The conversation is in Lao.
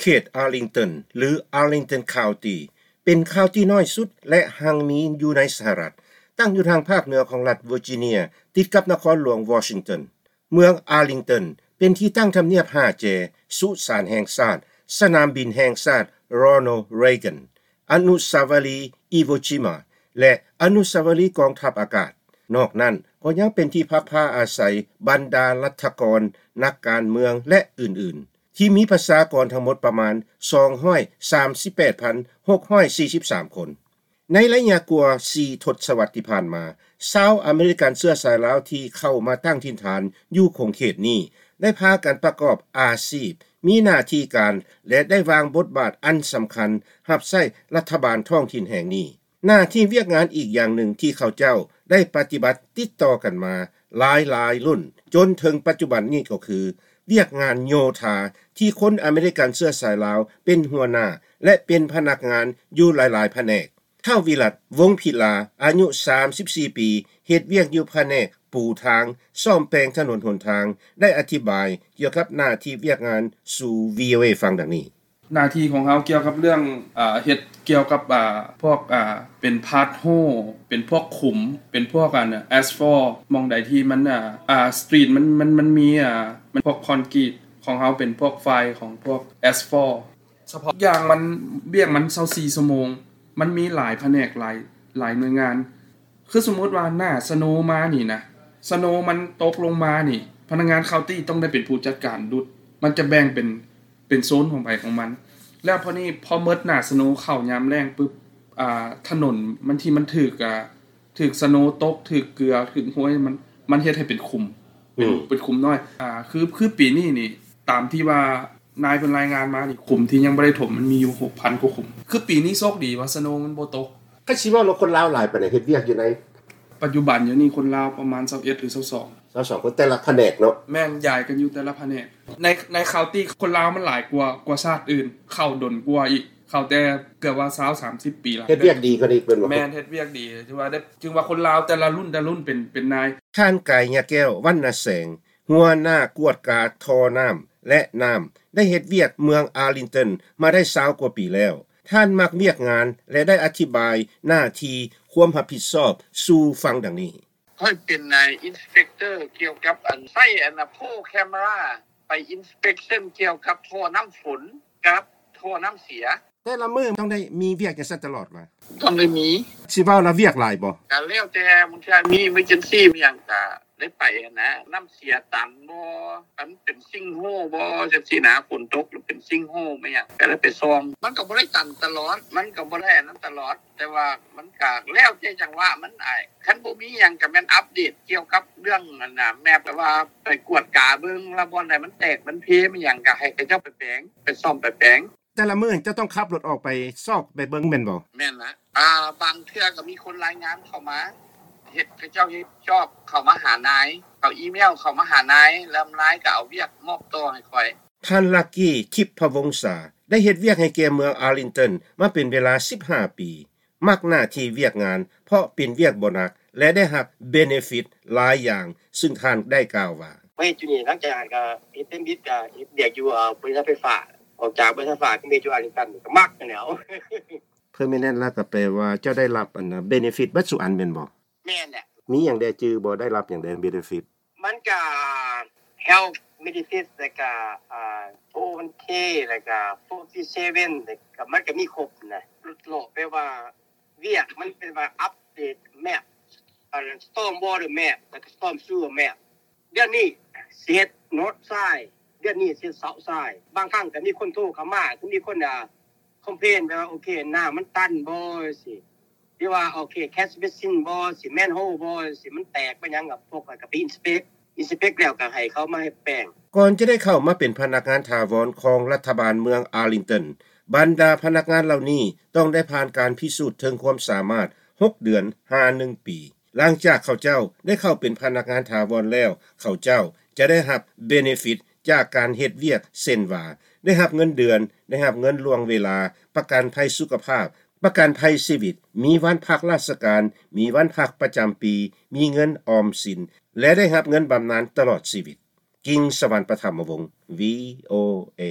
ເຂດ Arlington ຫຼື Arlington County ເປັນ county ນ້ອຍສຸດ ແລະ ຮັ່ງມີຢູ່ໃນສະຫະລັດ, ຕັ້ງຢູ່ທາງພາກເໜືອຂອງລັດ Virginia ຕິດກັບນະຄອນຫຼວງ Washington. ເມືອງ Arlington ເປັນທີ່ຕັ້ງທຳນຽບຫ້າແຈ, ສຸສານແຫ່ງຊາດ, ສະໜາມບິນແຫ່ງຊາດ Ronald Reagan, ອະນຸສາວະລີ Iwo Jima ແລະ ອະນຸສາວະລີກອງທັບອາກາດ. ນອກນັ້ນກໍຍັງເປັນທີ່ພັກພາອາໄສບັນດາລັດຖະກອນ, ນັກການເມືອງ ແລະ ອື່ນໆ ທີ່ມີປະຊາກອນທັງໝົດປະມານ ສອງຮ້ອຍສາມສິບແປດພັນຫົກຮ້ອຍສີ່ສິບສາມຄົນ. ໃນໄລຍະກວ່າສີ່ທົດສະວັດທີ່ຜ່ານມາ, ຊາວອາເມລິກັນເຊື້ອສາຍລາວທີ່ເຂົ້າມາຕັ້ງຖິ່ນຖານຢູ່ຂົງເຂດນີ້ ໄດ້ພາກັນປະກອບອາຊີບ, ມີໜ້າທີ່ການ ແລະ ໄດ້ວາງບົດບາດອັນສຳຄັນຮັບໃຊ້ລັດຖະບານທ້ອງຖິ່ນແຫ່ງນີ້. ໜ້າທີ່ວຽກງານອີກຢ່າງໜຶ່ງທີ່ເຂົາເຈົ້າໄດ້ປະຕິບັດຕິດຕໍ່ກັນມາຫຼາຍໆລຸ້ນ ຈົນເຖິງປັດຈຸບັນນີ້ກໍຄື ວຽກງານໂຍທາທີ່ຄົນອາເມລິກັນເຊື້ອສາຍລາວເປັນຫົວໜ້າ ແລະ ເປັນພະນັກງານຢູ່ຫຼາຍໆພະແນກ. ທ້າວວິລັດ ວົງພິລາ ອາຍຸສາມສິບສີ່ປີ ເຮັດວຽກຢູ່ພະແນກປູທາງ, ສ້ອມແປງຖະໜົນຫົນທາງ ໄດ້ອະທິບາຍກ່ຽວກັບໜ້າທີ່ວຽກງານສູ່ VOA ຟັງດັ່ງນີ້. ໜ້າທີ່ຂອງເຮົາກ່ຽວກັບເລື່ອງ ເອີ ເຮັດກ່ຽວກັບ ອາ ພວກ ອາ ເປັນພາດໂຮ ເປັນພວກຂຸມ ເປັນພວກ ອາ ແອັສຟອລ ໝ່ອງໃດທີ່ມັນ ອາ ອາ ສະຕຣີດ ມັນ ມັນ ມັນມີ ອາ ມັນພວກຄອນກຣີດ ຂອງເຮົາເປັນພວກຝ່າຍຂອງພວກແອັສຟອລ. ສະເພາະຢ່າງມັນ ວຽກມັນຊາວສີ່ຊົ່ວໂມງ ມັນມີຫຼາຍພະແນກ ຫຼາຍ ຫຼາຍໜ່ວຍງານ. ຄືສົມມຸດວ່າໜ້າສະໂນມານີ້ນະ ສະໂນມັນຕົກລົງມານີ້ ພະນັກງານເຄົາຕີ້ຕ້ອງໄດ້ເປັນຜູ້ຈັດການດຸດ ມັນຈະແບ່ງເປັນ ເປັນໂຊນຂອງໃຜຂອງມັນ. ແລ້ວພໍນີ້ ພໍໝົດໜ້າສະໂນເຂົ້າຍາມແລ້ງປຶບ ອາ ຖະໜົນມັນທີ່ມັນຖືກ ອາ ຖືກສະໂນຕົກ ຖືກເກືອ ຖືກຫ້ວຍ ມັນ ມັນເຮັດໃຫ້ເປັນຂຸມ ເປັນ ອືມ ເປັນຂຸມນ້ອຍ. ອາ ຄື ຄືປີນີ້ນີ້ ຕາມທີ່ວ່ານາຍເພິ່ນລາຍງານມານີ້ ຂຸມທີ່ຍັງບໍ່ໄດ້ຖົມມັນມີຢູ່ຫົກພັນກວ່າຂຸມ. ຄືປີນີ້ໂຊກດີວ່າສະໂນມັນບໍ່ຕົກ. ຄັນຊິເວົ້າແລ້ວ ຄົນລາວຫຼາຍປານໃດເຮັດວຽກຢູ່ໃນ ປັດຈຸບັນຢູ່ນີ້ຄົນລາວປະມານຊາວເອັດ ຫຼື ຊາວສອງ ຊາວສອງຄົນ ແຕ່ລະພະແນກເນາະ? ແມ່ນ ຢາຍກັນຢູ່ແຕ່ລະພະແນກ. ໃນ ໃນເຄົາຕີ້ຄົນລາວມັນຫຼາຍກວ່າ ກວ່າຊາດອື່ນ ເຂົ້າດົນກວ່າອີກ ເຂົ້າແຕ່ເກືອບວ່າຊາວ ສາມສິບປີລະ. ເຮັດວຽກດີກວ່ານີ້ເປັນບໍ່? ແມ່ນ ເຮັດວຽກດີ ຖືວ່າໄດ້ ຖືວ່າຄົນລາວແຕ່ລະລຸ້ນ ແຕ່ລະລຸ້ນເປັນ ເປັນນາຍ. ທ່ານ ກາຍຍະແກ້ວ ວັນນະແສງ ຫົວໜ້າກວດກາທໍ່ນ້ຳ ແລະ ນ້ຳ ໄດ້ເຮັດວຽກເມືອງ Arlington ມາໄດ້ຊາວກວ່າປີແລ້ວ. ທ່ານມັກວຽກງານ ແລະ ໄດ້ອະທິບາຍໜ້າທີ່ຄວາມຮັບຜິດຊອບສູ່ຟັງດັ່ງນີ້. ຂ້ອຍເປັນນາຍອິນສະເປັກເຕີກ່ຽວກັບອັນໃຊ້ອັນນະໂພແຄມເມຣາໄປອິນສະເປັກເຊິນກ່ຽວກັບທໍ່ນ້ຳຝົນກັບທໍ່ນ້ຳເສຍ. ແຕ່ລະມື້ຕ້ອງໄດ້ມີວຽກຈັ່ງຊັ້ນຕະຫຼອດວະ? ຕ້ອງໄດ້ມີ. ຊິເວົ້າລະວຽກຫຼາຍບໍ່? ກະແລ້ວແຕ່ ບາງເທື່ອມີ emergency ມີຫຍັງກະໄດ້ໄປຫັ້ນນະ. ນ້ຳເສຍຕັນບໍ່ ອັນເປັນຊິງໂຮບໍ່ ຈັ່ງຊີ້ນະ ຝົນຕົກແລ້ວເປັນຊິງໂຮແມ່ນຫຍັງ ກະໄດ້ໄປສ່ອງ. ມັນກະບໍ່ໄດ້ຕັນຕະຫຼອດ ມັນກະບໍ່ໄດ້ອັນນັ້ນຕະຫຼອດ ແຕ່ວ່າມັນກະແລ້ວແຕ່ຈັງຫວະມັນອ້າຍ. ຄັນບໍ່ມີຫຍັງກະແມ່ນອັບເດດກ່ຽວກັບເລື່ອງອັນນະ ແມັບ ແບບວ່າໄປກວດກາເບິ່ງ ລະບ່ອນໃດມັນແຕກມັນເພ ແມ່ນຫຍັງ ກະໃຫ້ເຂົາເຈົ້າໄປແປງ ໄປສ້ອມໄປແປງ. ແຕ່ລະມື້ເຈົ້າຕ້ອງຂັບລົດອອກໄປຊອກໄປເບິ່ງແມ່ນບໍ່? ແມ່ນນະ. ອາ ບາງເທື່ອກະມີຄົນລາຍງານເຂົ້າມາ ເຮັດ ເຂົາເຈົ້າເຮັດຈອບເຂົ້າມາຫານາຍ ເຂົາອີເມວເຂົ້າມາຫານາຍ ແລ້ວນາຍກະເອົາວຽກມອບຕໍ່ໃຫ້ຂ້ອຍ. ທ່ານ ລັກກີ ທິບພະວົງສາ ໄດ້ເຮັດວຽກໃຫ້ແກ່ເມືອງ Arlington ມາເປັນເວລາສິບຫ້າປີ. ມັກໜ້າທີ່ວຽກງານ ເພາະເປັນວຽກບໍ່ໜັກ ແລະ ໄດ້ຮັບ benefit ຫຼາຍຢ່າງ, ຊຶ່ງທ່ານໄດ້ກ່າວວ່າ. ມາເຮັດຢູ່ນີ້ ຫຼັງຈາກນັ້ນກະເຮັດເປັນບິດ ກະເຮັດວຽກຢູ່ ເອີ ບໍລິສັດໄຟຟ້າ. ອອກຈາກບໍລິສັດໄຟຟ້າ ກະມາເຮັດຢູ່ອັນນີ້ກັນ ກະມັກຫັ້ນແຫຼ້ວ. Permanent ລະກະແປວ່າເຈົ້າໄດ້ຮັບອັນ benefit ເບິດສູ່ອັນແມ່ນບໍ່? ແມ່ນແຫຼະ. ມີຫຍັງແດ່ ຈື່ບໍ່? ໄດ້ຮັບຫຍັງແດ່ benefit? ມັນກະ health benefit ແລ້ວກະ ອາ four oh one k ແລ້ວກະ four oh three seven ແລ້ວກະ ມັນກະມີຄົບນະ. ຫຼຸດຫຼອກແປວ່າວຽກມັນເປັນວ່າ update map ອັນ storm water map ແລ້ວກະ storm sewer map. ເດືອນນີ້ຊິເຮັດ north side ເດືອນນີ້ຊິເຮັດ south side. ບາງຄັ້ງກະມີຄົນໂທເຂົ້າມາ ຄືມີຄົນ ອາ complain ແບບວ່າ ໂອເຄ ນ້ຳມັນຕັນບໍ່ ຈັ່ງຊີ້ ຫຼືວ່າ ໂອເຄ catch basin ບໍ່ ຊິ manhole ບໍ່ ຊິ ມັນແຕກ ມັນຫຍັງ ກະພວກຂ້ອຍກະໄປ inspect inspect ແລ້ວກະໃຫ້ເຂົາມາເຮັດແປງ. ກ່ອນຈະໄດ້ເຂົ້າມາເປັນພະນັກງານຖາວອນຂອງລັດຖະບານເມືອງ Arlington, ບັນດາພະນັກງານເຫຼົ່ານີ້ຕ້ອງໄດ້ຜ່ານການພິສູດເຖິງຄວາມສາມາດ ຫົກເດືອນ ຫາ ໜຶ່ງປີ. ຫຼັງຈາກເຂົາເຈົ້າໄດ້ເຂົ້າເປັນພະນັກງານຖາວອນແລ້ວ, ເຂົາເຈົ້າຈະໄດ້ຮັບ benefit ຈາກການເຮັດວຽກ ເຊັ່ນວ່າ ໄດ້ຮັບເງິນເດືອນ, ໄດ້ຮັບເງິນລ່ວງເວລາ, ປະກັນໄພສຸຂະພາບ, ປະກັນໄພຊີວິດ, ມີວັນພັກລາຊະການ, ມີວັນພັກປະຈຳປີ, ມີເງິນອອມສິນ ແລະ ໄດ້ຮັບເງິນບຳນານຕະຫຼອດຊີວິດ. ກິງ ສະຫວັນປະຖຳມະວົງ VOA.